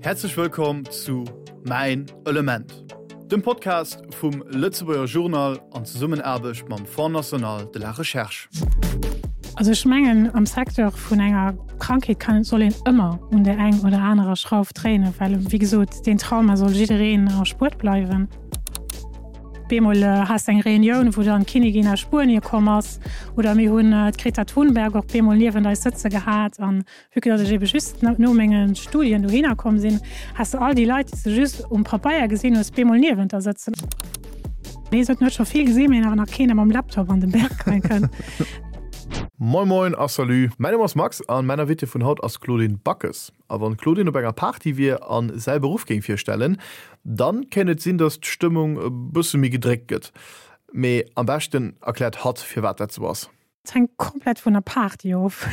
Häerzlech wëllkomm zu Mäin Element, dem Podcast vum Lëtzebuerger Journal an Zesummenaarbecht mam Fonds National de la Recherche. Also ech mengen am Secteur vun enger Krankheet kann soll een ëmmer un der eng oder anerer Schrauf dréinen, well wéi gesot deen Trauma soll jiddereen erspuert bleiwen. Bemol has de eng Reunioun, wou dann d'Kinnigin aus Spuenie komm ass oder mir hunn d'Greta Thunberg och bemol niewent eis sëtze gehat an Vue que datt ech ebe just no menge Studien dohinner komm sinn, has de all déi Leit, déi s de just um Papeier gesinn hues, bemol niewent der sëtzen. Nee, se huet scho vill gesinn, mee awer nach keen, dee mam Laptop an den Berg rein kënnt. Moin Moin a Salut! Mäin Numm ass Max an mäin Invité vun haut ass d'Claudine Backes. A wann d'Claudine op enger Party wier an säi Beruff géing virstellen, dann kéint et sinn, dass d'Stëmmung e bësse méi gedréckt gëtt. Mee am beschten erkläert hatt firwat dat sou ass. Et hänkt komplett vun der Party of.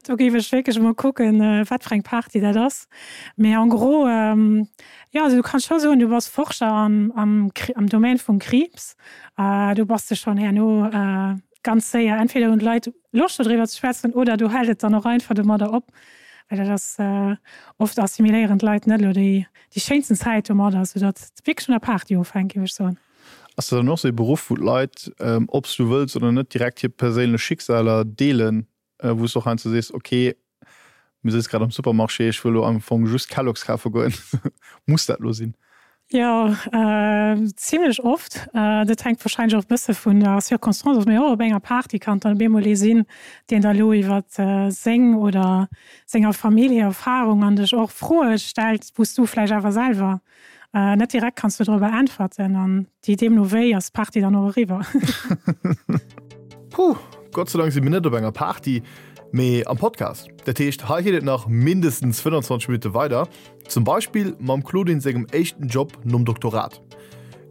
Do géif ech wierklech emol kucken, wat fir eng Party dat ass. Mee en gros, jo, also du kanns scho soen, du bass Forscher am, am, am Domaine vum Kriibs. Do bass de schonn herno ganz séier, entweder hunn d'Leit Loscht dodriwwer ze schwätzen oder do hält et dann och einfach domadder op, well dat ass, oft assimiléieren d'Leit net elo déi, déi schéinsten Zäit domadder, soudatt et wierklech vun der Party ofhänkt, géif ech soen. Ass dat dann och sou ee Beruff, wou d'Leit, ob s du wëlls oder net, direkt hir perséinlech Schicksaler deelen, wou s du och heiansdo sees, ok, mir sëtze grad am Supermarché, ech wëll elo am Fong just Kellogg's kafe goen, muss dat elo sinn? Jo, zimlech oft. Dat hänkt warscheinlech och e bësse vun der Circonstance of, mee och op enger Party kann et dann op eemol ee sinn, deen da elo iwwer seng oder senger Famill hir Erfarung an dech och Froe stellt, wou s du vläicht awer selwer Net direkt kanns du dorobber äntwerten an déi deemno wéi ass d'Party dann och eriwwer. Puh, Gott sei Dank si mir net op enger Party, mee am Podcast. Dat heescht, hei geet et nach mindestens 25 Minutte weider, zum Beispill mam Claudine sengem éischten Job nom Doktorat.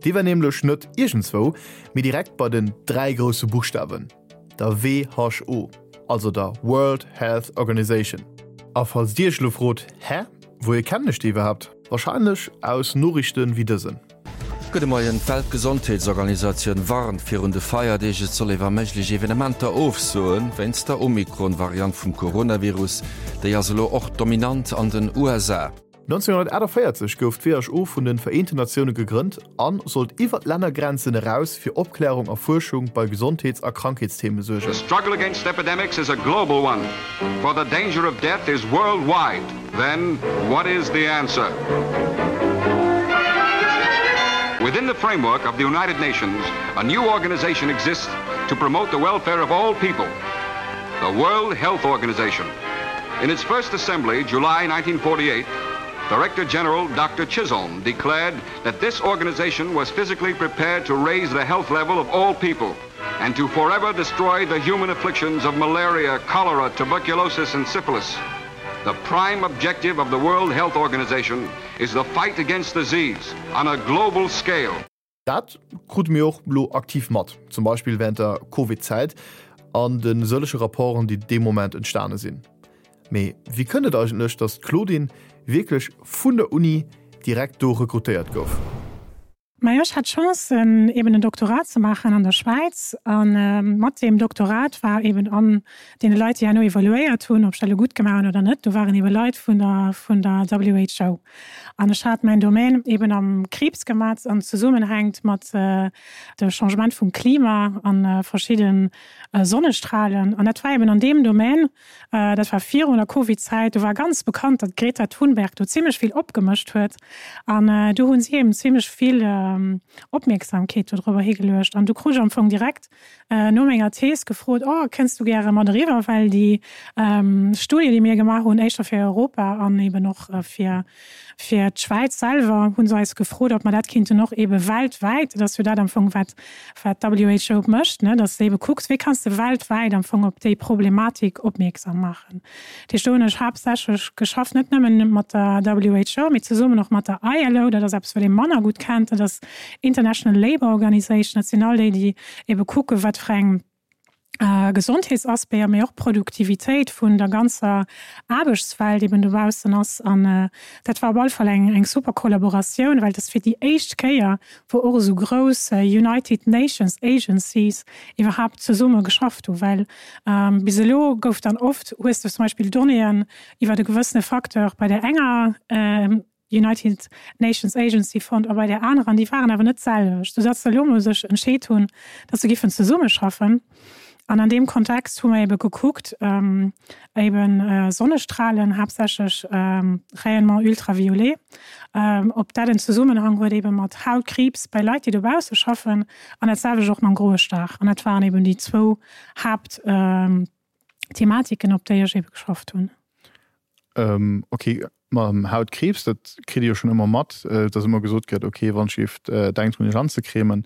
Dee war nämlech net iergendswou, mee direkt bei den 3 grousse Buchstawen. Der WHO, also der World Health Organization. A falls Dir Iech elo frot, Hä, wouhier kennen ech déi iwwerhaapt? Wahrscheinlech aus Noriichten wéi dësen. Gudde Moien, D'Weltgesondheetsorganisatioun warnt virun de Feierdeeg, et soll ee wa méiglech Evenementer ofsoen, wéinst der Omikron-Variant vum Coronavirus. Déi ass elo och dominant an den USA. 1948 gouf d'WHO vun de Vereenten Natioune gegrënnt a sollt iwwer d'Lännergrenzen eraus fir Opklärung a Fuerschung bei Gesondheets a Krankheetstheme suergen. The struggle against epidemics is a global one, for the danger of death is worldwide. Then, what is the answer? Within the framework of the United Nations, a new organization exists to promote the welfare of all people, the World Health Organization. In its first assembly, July 1948, Director General Dr. Chisholm declared that this organization was physically prepared to raise the health level of all people and to forever destroy the human afflictions of malaria, cholera, tuberculosis, and syphilis. The prime objective of the World Health Organization is the fight against disease on a global scale. Dat krute mir och elo aktiv mat, zum Beispill wärend der Covid-Zäit an de sëllege Rapporten, déi dee Moment entstane sinn. Mee wéi kënnt et eigentlech, datt d'Claudine wierklech vun der Uni direkt do rekrutéiert gouf? Majo, ech hat d'Chance, eben en Doktorat ze maachen an der Schwäiz. A mat deem Doktorat war eben an deene Leit, déi herno evaluéiert hunn, ob ech dat elo gutt gemaach hunn oder net, do waren ebe Leit vun der vun der WHO. An ech hat mäin Domaine eben am Kriibs gemat an zesummenhängt mat de Changement vum Klima an verschidde Sonnestrahlen. An dat war eben an deem Domaine, dat war virun der Covid-Zäit, do war ganz bekannt, datt d'Greta Thunberg do zimlech vill opgemëscht huet. An do hu si eben zimlech vill Opmierksamkeet dodrobber higeluecht. An du krut ech am Fong direkt no menger Thees gefrot, oh, kënns du gäre mat eriwwer, well déi Studie, déi mir gemaach hunn, éischter fir Europa an eben och fir, fir d'Schwäiz selwer, hu se eis gefrot, ob mer dat kinnten och ebe weltwäit, dat ass jo dat am Fong, wat, wat d'WHO mécht, ne, dass de ebe kucks, wéi kanns de weltwäit am Fong op déi Problematik opmierksam maachen. Dat heescht, do hunn ech haaptsächlech geschafft, net nëmmen mat der WHO, mee zesummen och mat der ILO, dat ass eppes, wat ee manner gutt kennt, dat ass International Labour Organization, dat sinn all déi, déi ebe kucken, wat fir eng. Gesondheetsaspecter, mee och Produktivitéit vun der ganzer Aarbechtswelt eben dobaussen ass. An dat war op alle Fall eng eng super Kollaboratioun, well et ass fir déi éischt Kéier, wou och esou grouss United Nations Agencies iwwerhaapt zesumme geschafft hu, well bis elo gouf dann oft, hues de zum Beispill Donnéeën iwwer e gewëssene Facteur bei där enger United Nations Agency fonnt a bei där anerer, an déi waren awer net d'selwecht, soudatt se elo emol sech entscheet hunn, datt se giffen zesummeschaffen. An an deem Kontext hu mer ebe gekuckt, ebe Sonnestrahlen, haaptsächlech Rayonnement ultraviolet, ob dat en Zesummenhang huet ebe mat Hautkriibs bei Leit, déi dobausse schaffen, an dat selwecht och mam groe Star. An dat waren eben déi zwou Haaptthematiken, op déi ech ebe geschafft hunn. Ok, mam Hautkriibs, dat kritt ee jo schonn ëmmer mat, dass ëmmer gesot gëtt, ok, wann d'Schift denkt drun iech anzecremen.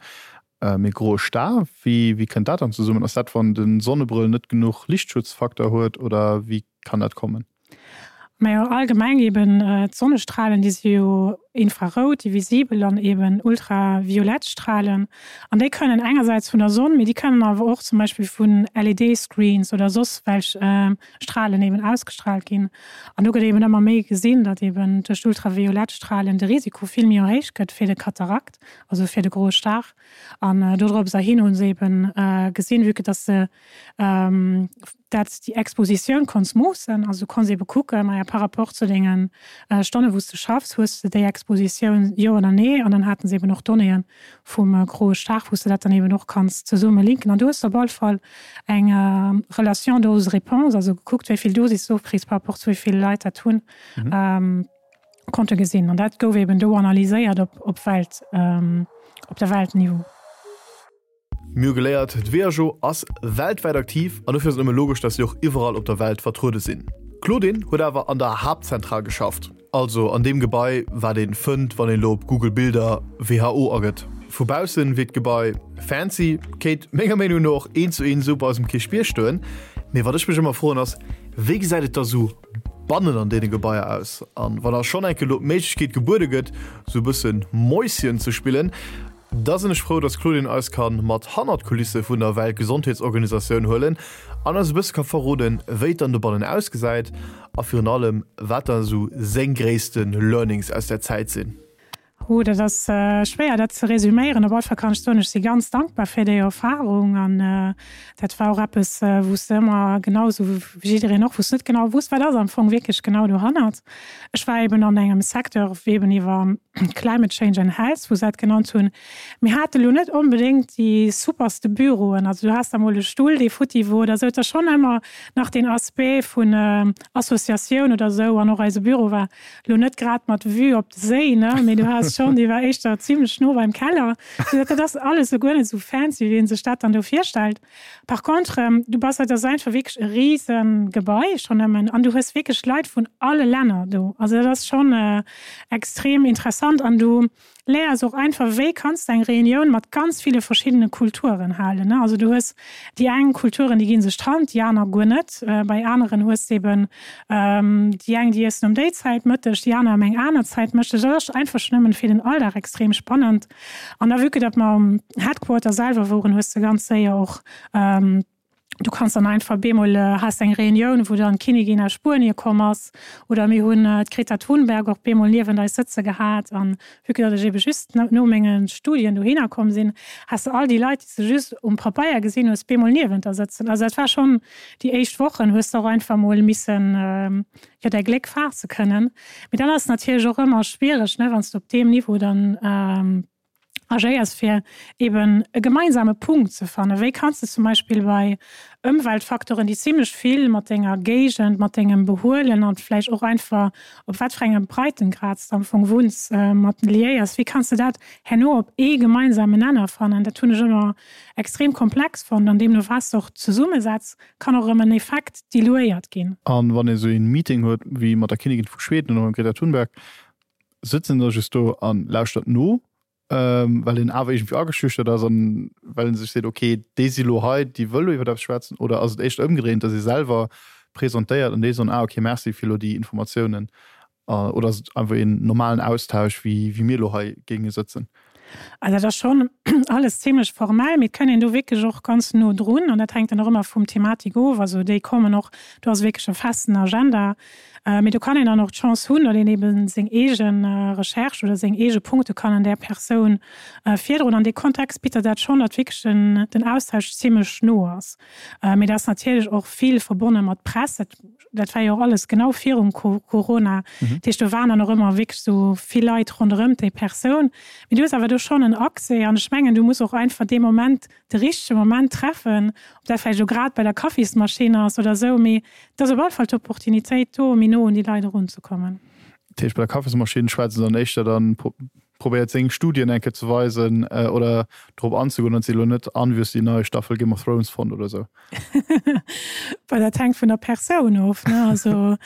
Mee groe Star, wéi wéi kënnt dat dann zesummen? Ass dat wann de Sonnebrëll net genuch Lichtschutzfaktor huet oder wéi kann dat kommen? Majo, allgemeng eben d'Sonnestralen, déi si jo infrarout, déi visibel an eben ultraviolett Stralen. An déi kënnen engersäits vun der Sonn, mee déi kënnen awer och zum Beispill vun LED-Screens oder soss welch Stralen eben ausgestrahlt ginn. An do gëtt eben ëmmer méi gesinn, datt eben duerch d'ultraviolett Stralen de Risiko vill méi erhéicht gëtt fir de Katarakt, also fir de groe Star. An dodrops erhin hu se eben gesinn, vue que datt se dat déi Expositioun konns moossen, also du konns ebe kucken, maja par rapport zu denge Stonne wou s de schaffs, hues de déi Expositioun, jo oder nee. An dann haten se eben och Donnéeën vum groe Star, wou s de dat dann eben och kanns zesumme linken. An du hues op all Fall eng Relation dose-réponse, also gekuckt, wéi vill Dosis du ofkriss par rapport zu wéi vill Leit dat hunn, konnte gesinn. An dat gouf eben do analyséiert op op Welt, op der Weltniveau. Mir hu geléiert, d'WHO ass weltwäit aktiv an dofir ass et nëmme logesch, dass si och iwwerall op der Welt vertruede sinn. D'Claudine huet awer an der Haaptzentral geschafft, also an deem Gebai, wat een fënnt, wann een elo op Google Bilder WHO agëtt. Vu baussen wierkt d'Gebai fancy, kéint menger Meenung no och eent zu eent esou bei eis um Kierchbierg stoen. Mee wat ech mech ëmmer froen ass, wéi gesäit et da sou bannen an deene Gebaier aus? An wann da schonn enke lo d'Méiglechkeet gebuede gëtt, sou e bësse Mäuschen ze spillen, Da sinn ech frou, dass d'Claudine eis kann mat hannert d'Kulisse vun der Weltgesondheetsorganisatioun huelen an eis e bësse ka verroden, wéi et dann dobannen ausgesäit a virun allem, wat da esou seng gréisste Learnings aus där Zäit sinn. Oh, dat ass schwéier, dat ze resüméieren. Op alle Fall kann ech soen, ech si ganz dankbar fir déi Erfarung an dat war och eppes, wou s de ëmmer, genau esou wéi jiddereen och, wou s de net genau wusst, wat ass am Fong wierklech genau dohannert. Ech war eben an engem Secteur, wéi eben iwwer Climate Change and Health, wou se dat genannt hunn. Mir hate lo net onbedéngt déi superste Büroen. Also du has da mol e Stull, dee futti wor oder esou. Et ass schonn ëmmer nach deen Aspect vun Associatioun oder esou. An och eise Büro war lo net grad mat Vue op de Séi, ne, mee du has schonn, dee war éischter zimlech no beim Keller. Soudatt dat ass alles esou guer net esou fancy, wéi ee sech dat dann do virstellt. Par contre, du bass, dat ass einfach wierklech e rise Gebai schonn nëmmen an du hues wierklech Leit vun alle Länner do. Also dat ass schonn extrem interessant an du léiers och einfach, wéi kanns de eng Reunioun mat ganz ville verschiddene Kulturen halen, ne. Also du hues déi eng Kulturen, déi gi sech d'Hand, déi aner guer net. Bei aneren hues de eben déi eng, déi iessen um déi Zäit Mëtteg, déi aner ëm eng aner Zäit Mëtteg. Dat ass einfach schonn nëmmen fir den Alldag extrem spannend. An da vue que datt mer um Headquarter selwer woren, hues de ganz séier och, du kanns dann einfach bemol has eng Reunioun, wou dann d'Kinnigin aus Spuenie komm ass, oder mir hunn d'Greta Thunberg och bemol niewent eis sëtze gehat. An vue que datt ech ebe just no menge Studien dohinner komm sinn, has de all déi Leit, déi s de just um Papeier gesinn hues, bemol niewent der sëtzen. Also dat war schonn, déi éischt Wochen hues de och einfach mol missen jo däi Gléck faasse kënnen. Mee dann ass et natierlech och ëmmer schwiereg, ne, wann s de op deem Niveau dann agéiers, fir eben e gemeinsame Punkt ze fannen. Wéi kanns de zum Beispill bei Ëmweltfacteuren, déi zimlech vill mat denger Géigend, mat dengem Behuelen an vläicht och einfach op wat fir engem Breitengrad s de am Fong wunns, mat liéiers, wéi kanns de dat herno op ee gemeinsamen Nenner fannen? Dat hunn ech ëmmer extrem komplex fonnt an deemno war s de och zesummesetz, kann och erëm en Effekt diluéiert ginn. An wann ee sou een Meeting huet wéi mat der Kinnigin vu Schweden oder mam Greta Thunberg, sëtzt een da just do an lauschtert no, well een awer iergendwéi ageschüchtert ass an well een sech seet, ok, déi si lo hei, déi wëll lo iwwer eppes schwätzen? Oder ass et éischter ëmgedréint, datt ee selwer presentéiert an déi soen, ah ok, merci fir lo déi Informatiounen? Oder ass et einfach een normalen Austausch, wéi mir lo hei géinge sëtzen? Also dat ass schonn alles zimlech formell, mee et kënn een do wierklech och ganz no drun an dat hänkt dann och ëmmer vum Thematik of. Also déi kommen och, do ass wierklech e festen Agenda, mee do kann een dann och d'Chance hunn, datt een eebe seng eege Recherche oder seng eege Punkte kann an där Persoun virdroen. An dee Kontext bitt der dat schonn, datt wierklech den Austausch zimlech no ass. Mee dat ass natierlech och vill verbonne mat Press. Dat Dat war jo och alles genau virum Corona. Dat heescht, do waren dann och ëmmer wierklech esou vill Leit ronderëm déi Persoun. Mee du hues awer do schonn en Accès an ech mengen, du muss och einfach dee Moment, de richtege Moment treffen, ob dat vläicht elo grad bei der Kaffismaschinn ass oder esou, mee et ass op alle Fall d'Opportunitéit do, méi no un déi Leit erunzekommen. Dat heescht, bei der Kaffismaschinn schwätzt se dann éischter dann probéiert seng Studien eng Kéier ze weisen oder drop anzegoen, datt si elo net an, wéi hues de déi nei Staffel Game of Thrones fonnt oder esou. Well dat hänkt vun der Persoun of, ne? Also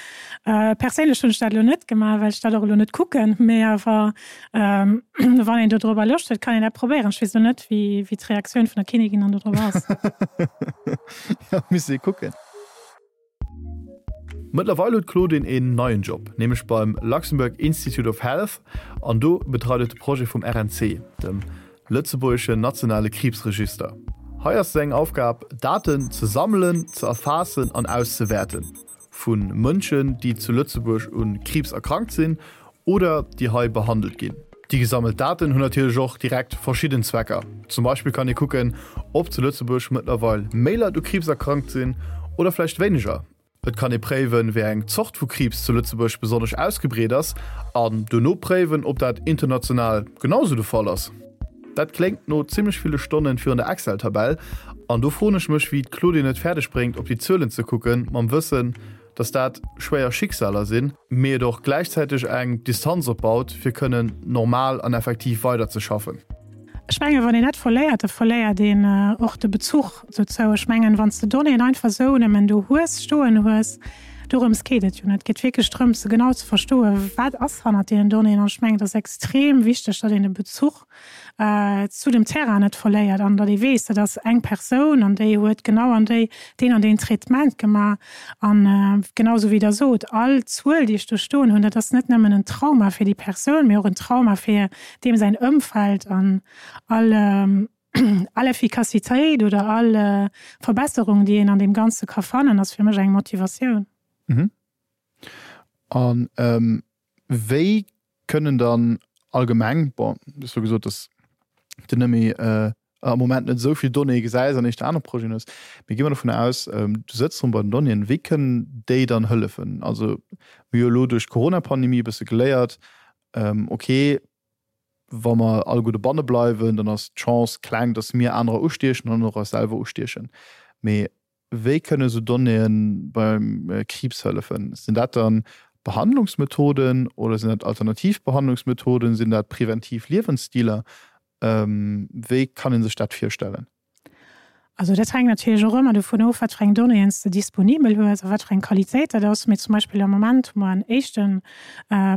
perséinlech hunn ech dat elo net gemaach, well ech dat och elo net kucken, mee awer wann een dodrobber Loscht huet, kann een dat probéieren. Ech weess elo net, wéi wéi d'Reaktioun vun der Kinnigin dann dodrop ass. Jo, misst ee kucken. Mëttlerweil huet d'Claudine een neien Job, nämlech beim Luxembourg Institute of Health an do betreit et de Projet vum RNC, dem lëtzebuergeschen nationale Kriibsregister. Hei ass seng Aufgab, Daten ze sammelen, ze erfaassen an auszewäerten vu Mënschen, déi zu Lëtzebuerg u Kriibs erkrankt sinn oder déi hei behandelt ginn. Déi gesammelt Daten hunn natierlech och direkt verschidden Zwecker. Zum Beispill kann ee kucken, ob zu Lëtzebuerg mëttlerweil méi Leit u Kriibs erkrankt sinn oder vläicht wéineger. Et kann ee préiwen, wéi eng Zort vu Kriibs zu Lëtzebuerg besonnesch ausgebreet ass an dono préiwen, ob dat international genau sou de Fall ass. Dat kléngt no zimmlech ville Stonnen virun der Excel-Tabell an do froen ech mech, wéi d'Claudine et fäerdeg bréngt, op déi Zuelen ze kucken, mam Wëssen, dass dat schwéier Schicksaler sinn, mee et och gläichzäiteg eng Distanz opbaut, fir kënnen normal an effektiv weiderzeschaffen. Ech mengen, wann een dat verléiert, da verléiert een och de Bezuch dozou. Ech mengen, wann s de Donnéeën einfach esou nëmmen do hues, stoen hues, dorëms geet et jo net. Et geet wierklech drëms, se genau ze verstoen, wat ass hannert deenen Donnéeën. An ech mengen, et ass extrem wichteg, datt een de Bezuch zu dem Terrain net verléiert an datt ee weess, dat ass eng Persoun an déi huet genau an déi deen an deen Traitement gemaach. An genau esou wéi Der sot, all Zuel, déi ech do stoen hunn, dat ass net nëmmen en Trauma fir déi Persoun, mee och en Trauma fir deem säin Ëmfeld an all all Effikassitéit oder all Verbesserung, déi een an deem Ganze ka fannen, ass fir mech eng Motivatioun. An wéi kënnen dann allgemeng, bon, du hues elo gesot, dass de net méi am Moment net esou vill Donnéeë gesäis an éischter aner Projeten hues, mee gi mer dovun aus, du sëtz erëm bei den Donnéeën, wéi kënnen déi dann hëllefen? Also mir hu jo elo duerch d'Corona-Pandemie e bësse geléiert, okay, wa mer alleguer dobanne bleiwen, dann ass d'Chance kleng, dass mir anerer ustiechen an och eis selwer ustiechen. Mee Wéi kënne sou Donnéeë beim Kriibs hëllefen? Sinn dat dann Behandlungsmethoden oder sinn dat alternativ Behandlungsmethoden? Sinn dat preventiv Liewensstiler? Wéi kann ee sech dat virstellen? Also dat hänkt natierlech och ëmmer dovun of, wat fir eng Donnéeën s de disponibel hues a wat fir eng Qualitéit dat ass. Mee zum Beispill am Moment hu mer en éischte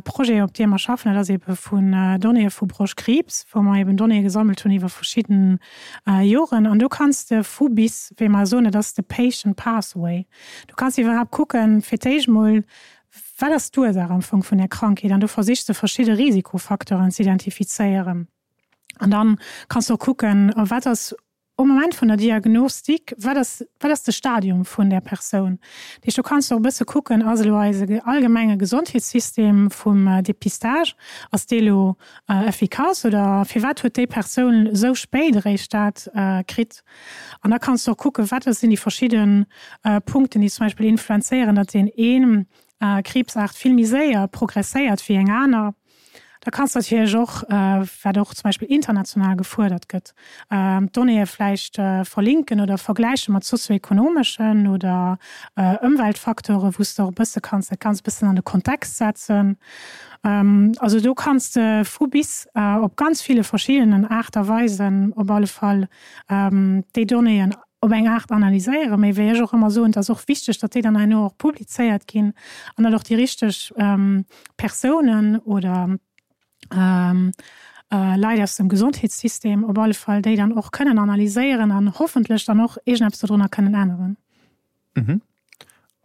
Projet, op deem mer schaffen, dat ass eebe vun Donnéeë vu Broschtkriibs, wou mer eeben Donnéeë gesammelt hunn iwwer verschidden Joren. An do kanns de vu bis, wéi mer soen, dat ass de Patient Pathway, du kanns iwwerhaapt kucken, fir d'éischt mol, wat ass d'Ursaach am Fong vun där Krankheet? An do versichs de verschidde Risikofacteuren ze identifizéieren. An dann kanns de och kucken, wat ass um Moment vun der Diagnostik, wat ass, wat ass de Stadium vun där Persoun? Dat heescht, do kanns de och e bësse kucken, ass elo eise allgemenge Gesondheetssystem vum Dépistage, ass dee elo Efficace oder firwat huet déi Persoun esou spéit eréischt dat kritt? An da kanns de och kucken, wat sinn déi verschidde Punkten, déi zum Beispill influenzéieren, datt deen een Kriibsaart vill méi séier progresséiert wéi eng aner. Da kanns de natierlech och, wat och zum Beispill international gefuerdert gëtt, d'Donnéeë vläicht verlinken oder vergläiche mat sozioekonomeschen oder Ëmweltfacteure, wou s de och e bësse kanns dat Ganzt e bëssen an de Kontext setzen. Also do kanns de vu bis op ganz ville verschiddenen Aart a Weisen op alle Fall déi Donnéeën op eng Aart analyséieren. Mee wéi ech och ëmmer soen, et ass och wichteg, datt déi dann herno och publizéiert ginn an datt och déi richteg Persounen oder Leit aus dem Gesondheetssystem op alle Fall déi dann och kënnen analyséieren an hoffentlech dann och iergendeppes dodrunner kënnen änneren.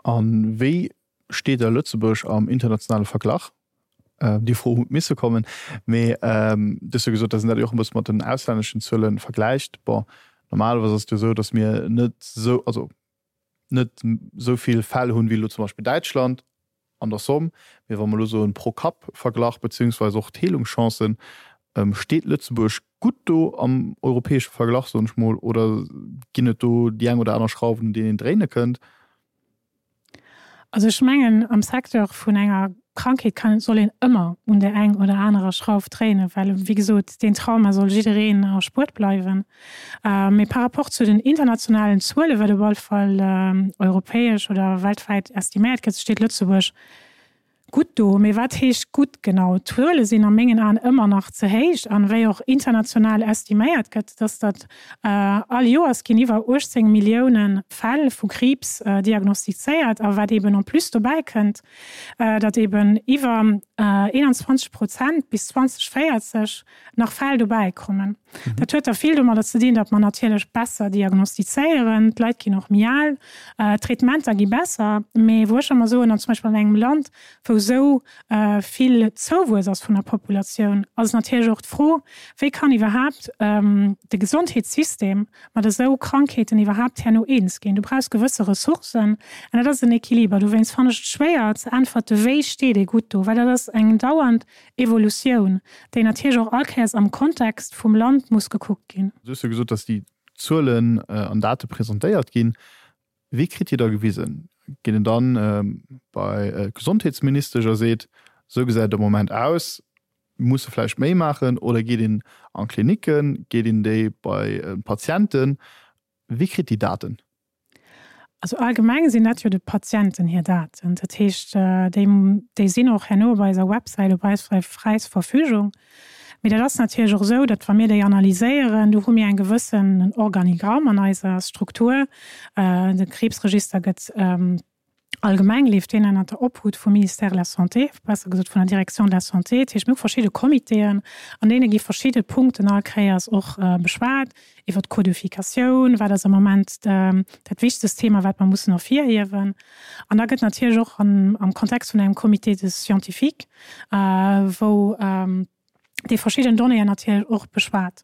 A wéi Steet da Lëtzebuerg am internationale Verglach? Déi Fro huet misse kommen. Mee du hues jo gesot, datt een dat jo och e bësse mat den auslänneschen Zuele vergläicht. Bon, normalerweis ass et jo esou, datt mir net esou, also net esou vill Fäll hunn, wéi elo zum Beispill Däitschland an der Somm. Mee wa mer elo soen pro Kapp verglach, beziehungsweise och d'Heelungschancen, steet Lëtzebuerg gutt do am europäesche Verglach, soen ech mol, oder ginn et do déi eng oder aner Schrauwen, un deenen een dréine kënnt? Also ech mengen, am Secteur vun enger Krankheet kann, soll een ëmmer un där eng oder anerer Schrauf dréinen, well, wéi gesot, deen Trauma soll jiddereen erspuert bleiwen. Mee par rapport zu den internationalen Zuelen, wat op alle Fall europäesch oder weltwäit estiméiert gëtt, steet Lëtzebuerg Gutt do, mee wat heescht gutt genau? D'Zuele sinn a mengen Aen ëmmer nach ze héich. An wéi och international estiméiert gëtt, dass datt all Joers ginn iwwer 18 Millioune Fäll vu Kriibs diagnostizéiert. A wat eeben en plus dobäi kënnt, datt eeben iwwer 21 Prozent bis 2040 nach Fäll dobäi kommen. Dat huet da vill domadder ze dinn, datt mer natierlech besser diagnostizéieren, d'Leit ginn och méi al, d'Traitementer gi besser. Mee wou ech ëmmer soen, an zum Beispill an engem Land, wou esou vill Zouwuess ass vun der Populatioun, ass et natierlech och d'Fro, wéi kann iwwerhaapt de Gesondheetssystem mat esou Krankheeten iwwerhaapt herno eens ginn. Du brauchs gewësse Ressourcen an dat ass en Equiliber. Dowéinst fannen ech et schwéier ze äntwerte wéi steet ee gutt do, well dat ass eng dauernd Evolutioun, déi natierlech och all Kéiers am Kontext vum Land muss gekuckt ginn. Du hues jo gesot, dass déi Zuelen an Date presentéiert ginn. Wéi kritt Dir da gewisen? Geet een dann bei d'Gesondheetsministesch a seet, esou gesäit et am Moment aus, mir musse vläicht méi maachen? Oder geet een an d'Klinicken, geet een déi bei d'Patienten? Wie kritt déi Daten? Also allgemeng sinn dat jo de Patienten hir Daten. Dat heescht, déi, déi sinn och herno op eiser Websäit op eis fräis Verfügung. Mee dat ass natierlech och esou, datt wa mir déi analyséieren, do hu mir eng gewëssen Organigramm an eiser Struktur. De Kriibsregister gëtt Allgemeng leeft deen ënnert der Obhut vum Ministère de la Santé, besser gesot vun der Direction de la Santé. Dat heescht, mir hu verschidde Comitéen, an deene gi verschidde Punkten all Kéiers och beschwat, iwwer d'Codificatioun, wat ass am Moment dat wichtegst Thema, wat mer mussen ervirhiewen. An da gëtt natierlech och am Kontext vun engem Comité de scientifique, wou, déi verschidden Donnéeën natierlech och beschwat,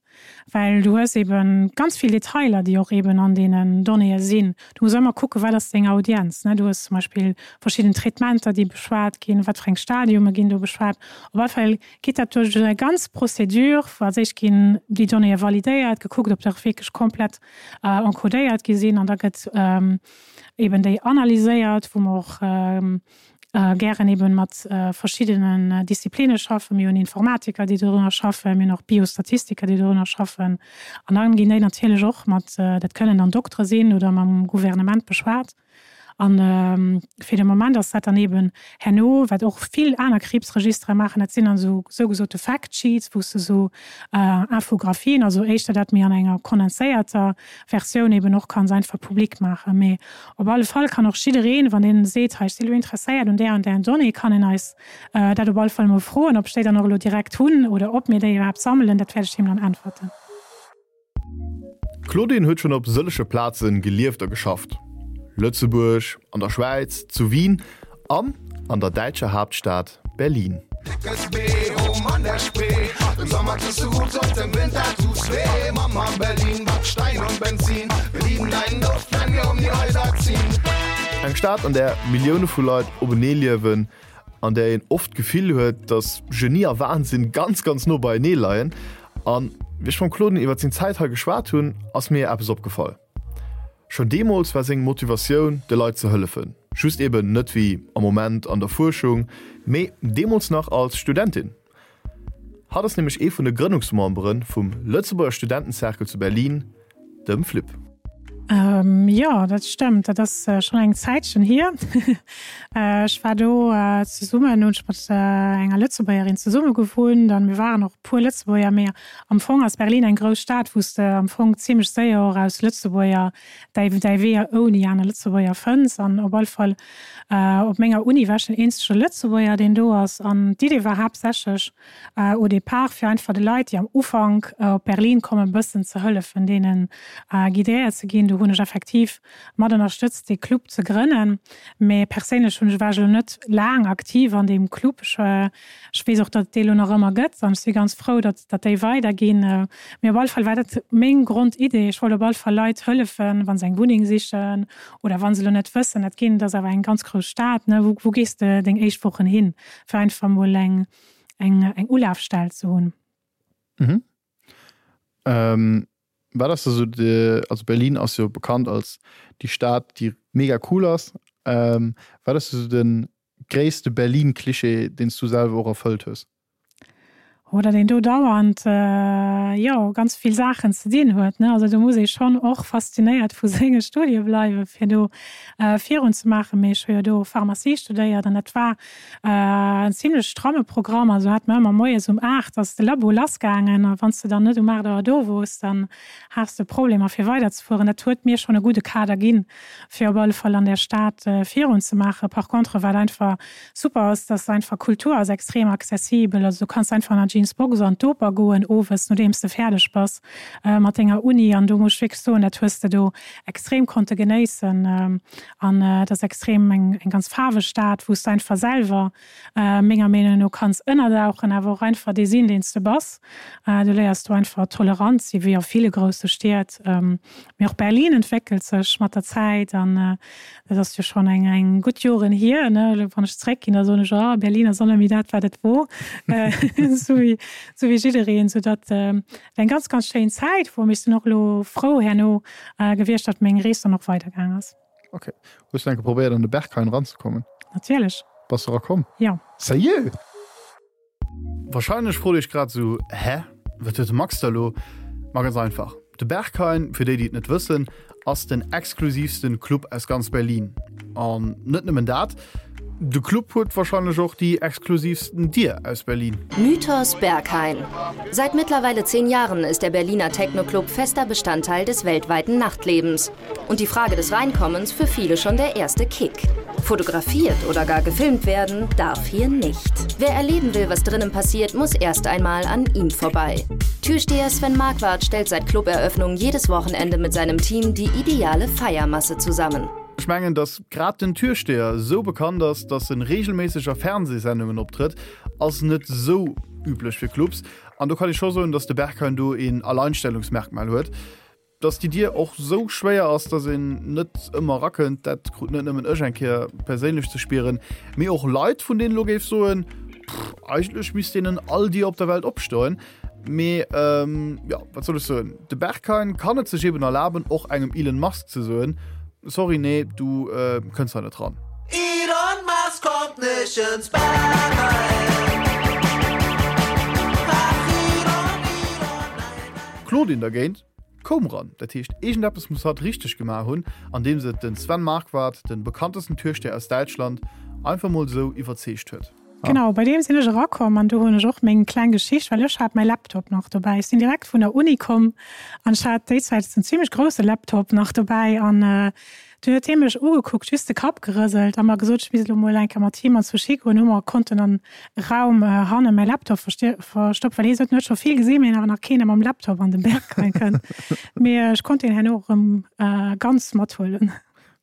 well du hues eben ganz vill Detailer, déi och eben an deenen Donnéeë sinn. Du muss ëmmer kucken, wat ass deng Audienz, ne? Du hues zum Beispill verschidden Traitementer, déi beschwat ginn, wat fir eng Stadiume ginn do beschwat. Op alle Fall geet dat duerch eng ganz Procédure, wou als éischt ginn déi Donnéeë validéiert, gekuckt, ob se och wierklech komplett encodéiert gi sinn an da gëtt eben déi analyséiert, wou mer och gären eben mat verschiddenen Disziplinne schaffen. Mir hunn Informatiker, déi dorunner schaffen, mir hunn och Biostatistiker, déi dorunner schaffen. An dann ginn déi natierlech och mat, dat kënnen dann Doktere sinn oder mam Gouvernement beschwat. An fir de Moment ass dat dann eben herno, wat och vill aner Kriibsregistere maachen, dat sinn dann esou sougesote Fact Sheets, wou s de esou Infographien, also éischter dat méi an enger kondenséierter Versioun eben och kanns einfach public maachen. Mee Op alle Fall kann och jiddereen, wann een seet, hei ech si lo interesséiert un där an där Donnée, kann een eis dat op alle Fall emol froen. Ob ech déi dann och elo direkt hunn oder ob mir déi iwwerhaapt sammelen, dat wäert ech him dann äntwerten. D'Claudine huet schonn op sëllege Plaze gelieft a geschafft, Lëtzebuerg, an der Schwäiz, zu Wien an an der däitscher Haaptstad Berlin. Eng Stad, an där Millioune vu Leit openee liewen, an där een oft d'Gefill huet, datt Genie a Wahnsinn ganz, ganz no beienee leien. An wéi ech mam Claudine iwwer seng Zäit hei geschwat hunn, ass mir eppes opgefall. Schonn deemools war seng Motivatioun, de Leit ze hëllefen. Just eben net wéi am Moment an der Fuerschung, mee deemools nach als Studentin. Hatt ass nämlech ee vun de Grënnungsmembere vum Lëtzebuerger Studentencercle zu Berlin, dem FLIB. Jo, dat stëmmt. Dat ass schonn eng Zäitchen hier. Ech war do zesummen, hunn ech mat enger Lëtzebuergerin zesumme gewunnt an mir waren och e puer Lëtzebuerger. Mee am Fong ass Berlin eng grouss Stad, wou s de am Fong zimmlech séier och aus Lëtzebuerger däi däi Wee ouni aner Lëtzebuerger fënns. An op alle Fall op menger Uni war ech den eenzege Lëtzebuerger, deen do ass. An d'Idee war haaptsächlech au départ, fir einfach de Leit, déi am Ufank op Berlin kommen, e bëssen ze hëllefen, deenen guidéiert ze ginn. do hunn ech effektiv mat ënnerstëtzt dee Club ze grënnen. Mee perséinlech hunn ech, war ech elo net laang aktiv an deem Club. Ech, ech weess och, datt et dee elo nach ëmmer gëtt an ech si ganz frou, datt, datt déi weiderginn. Mee op alle Fall war dat meng Grondidee. Ech wollt op alle Fall Leit hëllefen, wa se eng Wunneng sichen oder wa se elo net wëssen, dat ginn, dat ass awer eng ganz grouss Stad, ne, wou, wou gees de deng éischt Wochen hin, fir einfach emol eng, eng, eng Ulafstell ze hunn. Mhm. Ähm, wat ass da sou de, also Berlin ass jo bekannt als déi Stad, déi mega cool ass. Ähm, wat ass da sou de gréisste Berlin-Klischee, deen s du selwer och erfëllt hues? Oder deen do dauernd, jo, ganz vill Saachen ze dinn huet, ne. Also do muss ee schonn och faszinéiert vu senge Studie bleiwen, fir do virun ze maachen. Mee ech hu jo do Pharmacie studéiert an dat war en zimlech stramme Programm. Also hat mer ëmmer moies um 8 ass de Labo lassgaangen a wann s de dann net um 8 Auer do wors, dann has de Problemer fir weiderzefueren. Dat huet mir schonn e gudde Kader ginn, fir op alle Fall an där Stad virun ze maachen. Par contre, wat einfach super ass, dass einfach Kultur ass extrem accessibel. Also du kanns einfach an der Jeans Box an d'Oper goen owes, nodeems de fäerdeg bass mat denger Uni. An do muss ech wierklech soen, dat hues de do extrem konnte genéissen. An et ass extrem eng ganz faarweg Stad, wou s de einfach selwer menger Meenung no kanns ënnerdauchen, awer och einfach dee sinn, deen s de bass. Du léiers do einfach tolerant sinn, wéi a ville grousse Stied. Mee och Berlin entwéckelt sech mat der Zäit an dat ass jo schonn eng eng gutt Joren hier, ne. Elo wann ech zeréckginn, da soen ech, oh Berlin ass och net méi dat, wat et wor, esou wéi esou wéi jiddereen. Soudatt et eng ganz, ganz schéin Zäit wor. Mee ech sinn och elo frou herno gewiescht, datt meng Rees dann och weidergaang ass. Ok. Hues du eng Kéier probéiert an de Berghain eranzekommen? Natierlech. Bass du erakomm? Jo. Sérieux? Wahrscheinlech frot iech grad sou, Hä? Wat huet de Max da lo? Ma ganz einfach, de Berghain, fir déi déi et net wëssen, ass den exklusivsten Club aus ganz Berlin. An net nëmmen dat, de Club huet wahrscheinlech och déi exklusivsten Dier aus Berlin. Mythos Berghain. Seit mittlerweile zehn Jahren ist der Berliner Techno-Club fester Bestandteil des weltweiten Nachtlebens. Und die Frage des Reinkommens für viele schon der erste Kick. Fotografiert oder gar gefilmt werden darf hier nicht. Wer erleben will, was drinnen passiert, muss erst einmal an ihm vorbei. Türsteher Sven Marquardt stellt seit Cluberöffnung jedes Wochenende mit seinem Team die ideale Feiermasse zusammen. Ech mengen, dass grad den Türsteher sou bekannt ass, dass en regelméisseg a Fernsehsendungen optrëtt, ass net sou üblech fir Clubs. An do kann ee scho soen, dass de Berghain do een Alleinstellungsmerkmal huet. Dass déi Dier och sou schwéier ass, dass een net ëmmer erakënnt, dat krut net nëmmen ech eng Kéier perséinlech ze spieren, mee och Leit, vun deenen elo géif soen, pff, eigentlech misst deenen all Dier op der Welt opstoen. Mee jo, wat soll ech soen, de Berghain kann et sech eben erlaben, och engem Elon Musk ze soen, Sorry, nee, du kënns hei net ran. Elon Musk kommt nicht ins Berghain. Ach Elon, Elon, nein, nein. D'Claudine dergéint koum ran. Dat heescht, iergendeppes muss hatt richteg gemaach hunn, andeems et den Sven Marquardt, den bekanntesten Türsteher aus Däitschland, einfach mol sou iwwerzeegt huet. Genau, bei deem sinn ech erakomm an do hunn ech och meng kleng Geschicht, well ech hat mäi Laptop nach dobäi. Ech sinn direkt vun der Uni komm an ech hat déi Zäit en zimmlech grousse Laptop nach dobäi an dunn huet hie mech ugekuckt, just de Kapp gerëselt a mer gesot, ech misst elo mol eng Kéier mat him an d'Sushi goen. Hu mer konnten an e Raum hanne mäi Laptop verstoppen, well hie sot, en huet scho vill gesinn, mee awer nach keen, dee mam Laptop an de Berghain kënnt. Mee ech konnt deen herno erëm ganz mathuelen.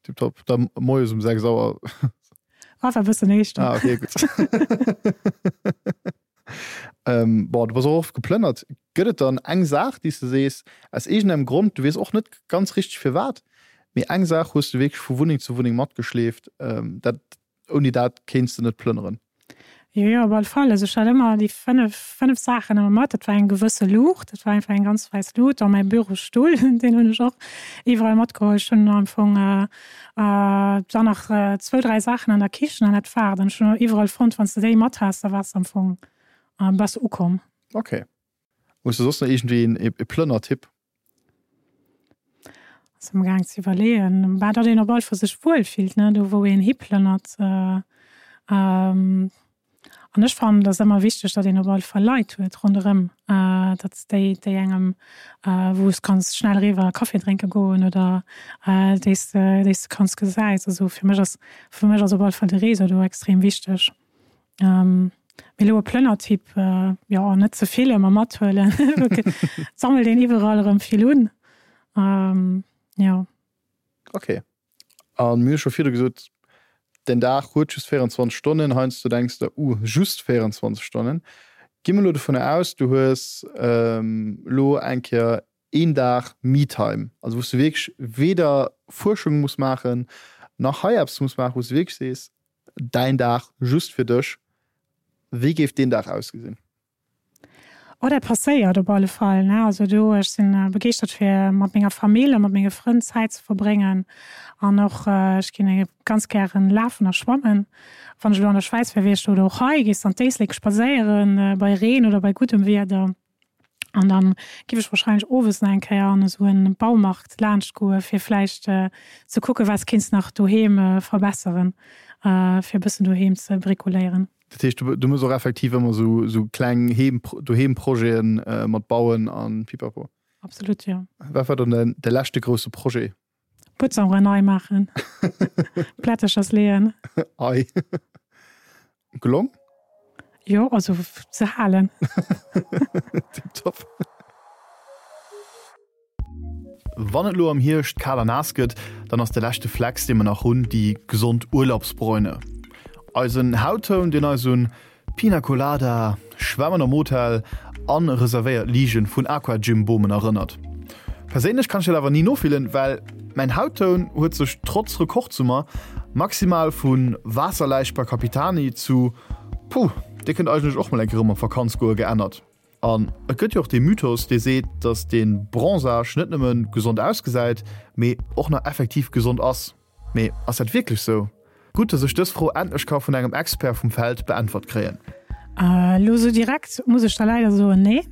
Tiptop, da moies um 6 Auer. Ah, war e bëssen éischter. Ah, okay, gutt. ähm, bon, du bass och oft geplënnert. Gëtt et dann eng Saach, déi s de sees, aus iergendengem Grond, du weess och net ganz richteg firwat, mee eng Saach hues du wierklech vu Wunneng zu Wunneng matgeschleeft, ähm, dat, ouni dat kéints de net plënneren? Jo, jo, op alle Fall. Also ech hat ëmmer déi 5, 5 Saachen ëmmer mat. Dat war eng gewësse Luucht, dat war einfach eng ganz wäiss Luut, dann mäi Bürostull, deen hunn ech och iwwerall matgeholl. Ech hunn am Fong dann nach zwou, dräi Saachen an der Kichen an dat war et. An ech hunn och iwwerall fonnt, wann s de déi mat has, da waars de am Fong, bass de ukomm. Ok. Hues de soss nach iergendwéi een e Plënnertipp? Ass am gaang ze iwwerleeën. Bah, datt een op alle Fall sech wuel fillt, ne, do wou een hiplënnert. An ech fannen, et ass ëmmer wichteg, datt een op alle Fall Leit huet ronderëm, datt déi, déi engem, wou s kanns schnell eriwwer Kaffi drénke goen oder déi s de, déi s de kanns gesäis. Also fir mech ass, fir mech ass op alle Fall de Réseau do extrem wichteg. Mee elo e Plënnertyp, jo, net ze vill ëmmer mathuelen, et sammelt een iwwerall erëm vill un, jo. Ok. A mir hu scho virdu gesot, den Dag huet just 24 Stonnen. Heiansdo denks de, Uh, just 24 Stonnen. Gi mer elo dovunner aus, du hues elo eng Kéier een Dag Me-Time, also wou s du wierklech weder Fuerschung muss maachen, nach hei eppes muss maachen, wou s du wierklech sees, däin Dag just fir dech. Wéi géif deen Dag ausgesinn? Oh, dat passéiert op alle Fall, ne. Also do, ech sinn begeeschtert fir mat menger Famill a mat menge Frënn Zäit ze verbréngen an och ech ginn ganz gären lafen a schwammen. Wann ech elo an der Schwäiz wär, wier ech do oder och hei, gees de an d'Éislek spadséieren, bei Reen oder bei guddem Wieder. An dann giff ech wahrscheinlech owes nach eng Kéier an esou en Baumarkt laanscht goen, fir vläicht ze kucken, wat s kéints nach doheem verbesseren, fir e bëssen doheem ze bricoléieren. Dat heescht, du mëss och effektiv ëmmer esou esou kleng Heem, Doheem-Projeten mat Bauen an Pipapo? Absolut, jo. Wat war dann de leschte grousse Projet? Butzauere nei maachen, Plätterchers leeën. Ei. Gelong? Jo, also ze halen. Tiptop. Wann et lo am Hierscht kal a naass gëtt, dann ass de leschte Flex dee mer nach hunn déi gesond Urlaubsbräune. Eisen Hauttoun deen eis un Pina Colada, Schwämmen am Hotel an reservéiert Ligen vun Aquagym Bomen erënnert. Perséinlech kann ech dat awer ni nofillen, well mäin Hauttoun huet sech trotz Rekordsummer maximal vu Waasserläich bei Capitani zu Puh, dir kënnt eigentlech och mol eng Kéier erëm op Vakanz goe geännert. An et gëtt jo och dee Mythos, dee seet, datt dee Bronzage net nëmme gesond ausgesäit, mee och nach effektiv gesond ass. Mee ass dat wierklech sou? Gutt, datt ech dës Fro endlech ka vun engem Expert vum Feld beäntwert kréien. Elo sou direkt muss ech der leider soen, nee.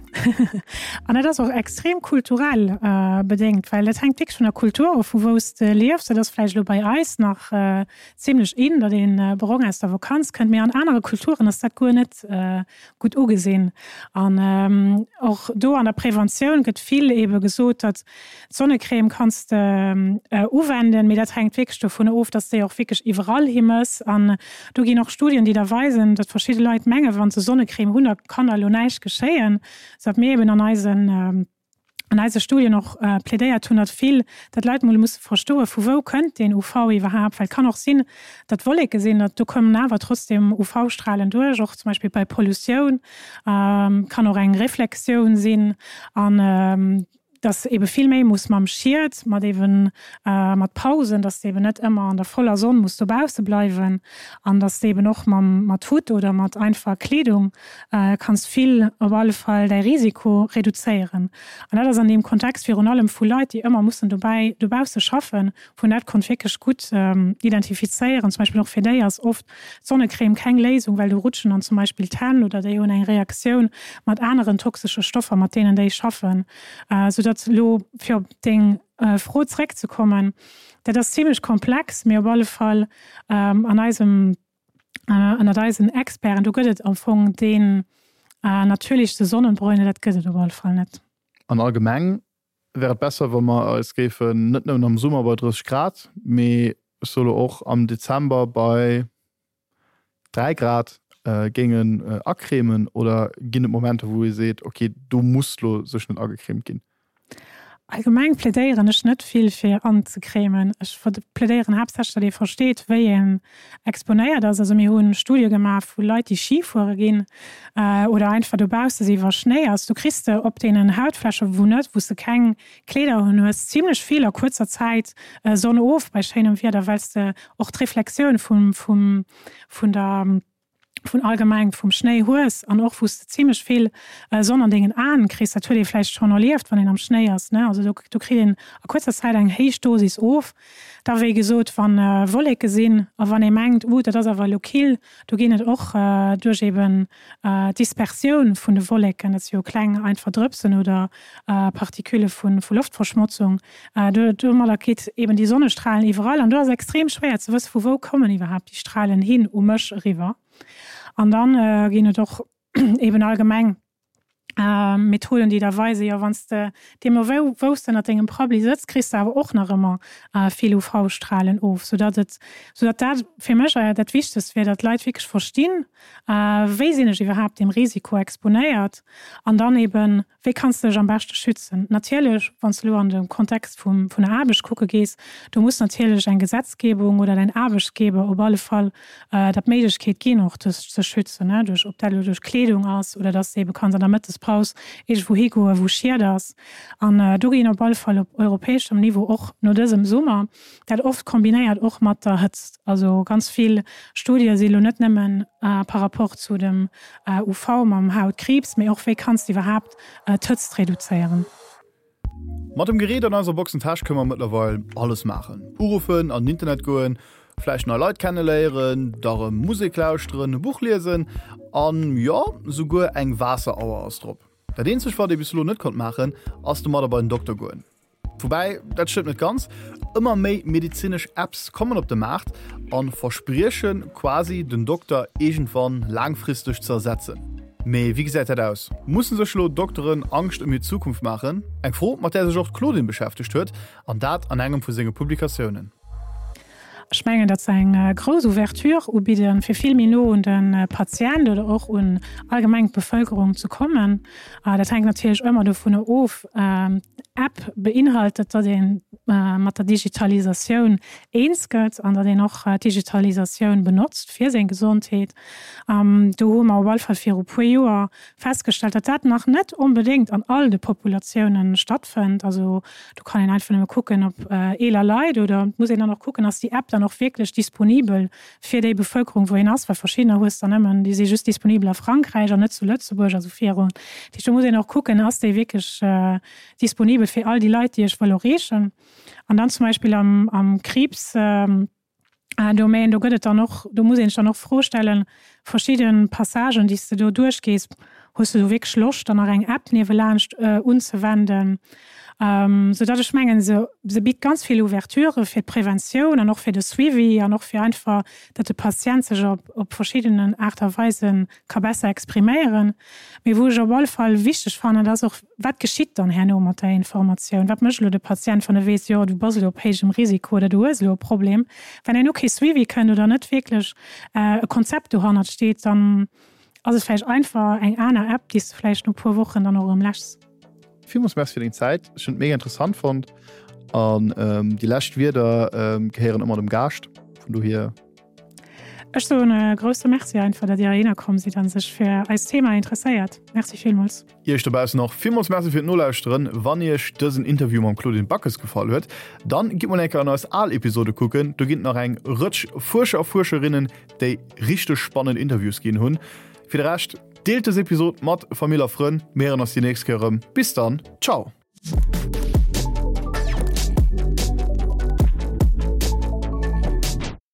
An dat ass och extrem kulturell bedéngt, well dat hänkt wierklech vun der Kultur of, vu wou s de liefs. Dat ass vläicht elo bei eis nach zimlech in, datt ee brong aus der Vakanz kënnt, mee an anere Kulturen ass dat guer net gutt ugesinn. An och do an der Preventioun gëtt vill eebe gesot, datt d'Sonnecrème kanns de uwenden, mee dat hänkt wierklech dovun of, datt s déi och wierklech iwwerall hi mëss. An do ginn och Studien, déi da weisen, datt verschidde Leit mengen, wa se Sonnecrème hunn, da kann da elo näischt geschéien, soudatt mir eeben an eisen an eise Studien och plädéiert hunn, datt vill, datt d'Leit mol musse verstoen, vu wou kënnt deen UV iwwerhaapt, well et kann och sinn, datt Wolleke sinn, datt do kommen awer trotzdem UV-Strahlen duerch, och zum Beispill bei Pollutioun, kann och eng Reflexioun sinn an datt ebe vill méi muss mam Schied, mat eben mat Pausen, datt s de eben net ëmmer an der voller Sonn muss dobausse bleiwen an datt s de eben och mam mat Hutt oder mat einfacher Kleedung kanns vill op alle Fall däi Risiko reduzéieren. An dat ass an deem Kontext virun allem vu Leit, déi ëmmer mussen dobäi dobausse schaffen, wou een dat konnt wierklech gutt identifizéieren. Zum Beispill och fir déi ass oft d'Sonnecrème keng Léisung, well do rutschen dann zum Beispill d'Hänn oder déi hunn eng Reaktioun mat aneren toxesche Stoffer, mat deenen déi schaffen. Soudatt elo, fir op deng Fro zréckzekommen, dat ass zimlech komplex, mee op alle Fall an eisem ënnert eisen Experten, do gëtt et am Fong deen natierlechste Sonnenbräune, dat gëtt et op alle Fall net. An allgemeng wär et besser, wa mer eis géifen net nëmmen am Summer bei 30 Grad, mee ech soe lo och am Dezember bei 3 Grad géingen acremen? Oder ginn et Momenter, wou ee seet, okay, do muss lo sech net agecremt ginn? Allgemeng plädéieren ech net vill fir anzecremen. Ech plädéieren haaptsächlech, datt ee versteet, wéi een exponéiert ass. Also mir hu Studie gemaach vu Leit, déi Ski fuere ginn oder einfach dobausse si wa Schnéi ass. Du kriss de op deenen Hautfläche wou net, wou s de keng Kleeder un hues, zimlech vill a kuerzer Zäit Sonn of bei schéinem Wieder, well s de och d'Reflexioun vum vun der vun allgemeng vum Schnéi hues an och wou s de zimlech vill Sonn an dengen Aen kriss, dat huet ee vläicht schonn erlieft, wann een am Schnéi ass, ne, also do do kritt een a kuerzer Zäit eng héich Dosis of. Da wéi gesot, wa Wolleke sinn a wann ee mengt, uh dat ass awer elo kill, do ginn et och duerch eben d'Dispersioun vun de Wolleken, dat si jo kleng einfach Drëpsen oder Partikülle vu vu Loftverschmotzung, do domadder kritt eben déi Sonnestralen iwwerall an do ass extrem schwéier ze wësse vu wou kommen iwwerhaapt déi Stralen hin u mech eriwwer. An dann ginn et och eben allgemeng Methoden déi da weisen, jo wann s de deemno wou wou s de ënnert dengem Prabbeli sëtz, kriss de awer och nach ëmmer vill UV-Stralen of, soudatt et soudatt dat fir mech dat Wichtegst wier, datt d'Leit wierklech verstinn, wéi sinn ech iwwerhaapt deem Risiko exponéiert an dann eben. Wéi kanns de dech am beschte schützen? Natierlech, wann s de elo an de Kontext vum, vun der Aarbecht kucke gees, do muss natierlech eng Gesetzgebung oder däin Aarbechtsgeber op alle Fall der d'Méiglechkeet ginn, och dech ze schützen, ne, duerch, ob dat elo duerch Kleedung ass oder dass de ebe kanns an der Mëttespaus iergendwou higoen, wou Schied ass. An do ginn op alle Fall op europäeschem Niveau och no dësem Summer, dat oft kombinéiert och mat der Hëtzt, also ganz vill Studie si lo net nëmmen par rapport zu dem UV mam Hautkriibs, mee och wéi kanns de iwwerhaapt d'Hëtzt reduzéieren. Mat dem Gerät an eiser Boxentäsch kënne mer mëttlerweil alles maachen, Uruffen, an den Internet goen, vläicht nei Leit kenneléieren, da rëm Musek lauschteren, e Buch liesen an, jo, souguer eng Waasserauer ass drop. Dat eenzegt wat ee bis elo net konnt maachen, ass domadder bei den Dokter goen. Woubäi, dat stëmmt net ganz, ëmmer méi medezinesch Apps kommen op de Maart a versprieche quasi den Dokter iergendwann laangfristeg ze ersetzen. Mee wéi gesäit dat aus? Musse sech elo Dokteren Angscht ëm hir Zukunft maachen? Eng Fro, mat där sech och d'Claudine beschäftegt huet, an dat an engem vu senge Publikatiounen. Ech mengen, datt se eng grouss Ouverture ubidden, fir vill méi no un de Patient oder och un allgemeng d'Bevëlkerung ze kommen. Dat hänkt natierlech ëmmer dovunner of, D'App beinhaltet, datt ee mat der Digitalisatioun eens gëtt an datt een och d'Digitalisatioun benotzt fir seng Gesondheet. Do hu mer op alle Fall viru puer Joer festgestallt, datt dat nach net onbedéngt an all de Populatiounen stattfënnt. Also do kann een einfach nëmme kucken op eeler Leit oder et muss een dann och kucken, ass déi App dann och wierklech disponibel fir déi Bevëlkerung, wou een ass, well verschiddener hues der nëmmen, déi si just disponibel a Frankräich an net zu Lëtzebuerg a sou virun. Dat heescht, do muss een och kucken, ass déi wierklech disponibel fir all déi Leit, déi ech wëll erreechen. An dann zum Beispill am Kriibs, Domaine, do gëtt et dann och, do muss een sech dann och d'Fro stellen, verschidde Passagen, déi s de do duerchgees, hues de do wierklech Loscht, dann nach eng App niewelaanscht unzewenden? Soudatt ech mengen, se se bitt ganz vill Ouverturë fir d'Preventioun an och fir de Suivi an och fir einfach, datt de Patient sech op op verschiddenen Aart a Weise ka besser expriméieren. Mee wou ech op alle Fall wichteg fannen, dat ass och, Wat geschitt dann herno mat der Informatioun? Wat mécht elo de Patient, wann e weess, jo, du bass elo op héijem Risiko oder du hues elo e Problem? Wenn herno kee Suivi kënnt oder net wierklech e Konzept dohannert steet, dann ass et vläicht einfach eng aner App, déi s de vläicht no e puer Wochen dann och erëm läschs. Villmools Merci fir deng Zäit. Ech hunn et mega interessant fonnt. An déi lescht Wierder gehéieren ëmmer dem Gaascht. Vun dohier. Ech soen e grousse Merci einfach, datt Dir heihinner komm sidd a sech fir eist Thema interesséiert. Merci villmools. Iech dobaussen och villmools Merci fir d'Nolauschteren. Wann Iech dësen Interview mam Claudine Backes gefall huet, dann gitt mol eng Kéier an eis al Episode kucken. Do ginn et nach eng Rëtsch Fuerscher a Fuerscherinnen, déi richteg spannend Interviews ginn hunn. Fir de Rescht, deelt dës Episod mat Famill a Frënn. Mir héieren eis déi nächst Kéier erëm. Bis dann, ciao!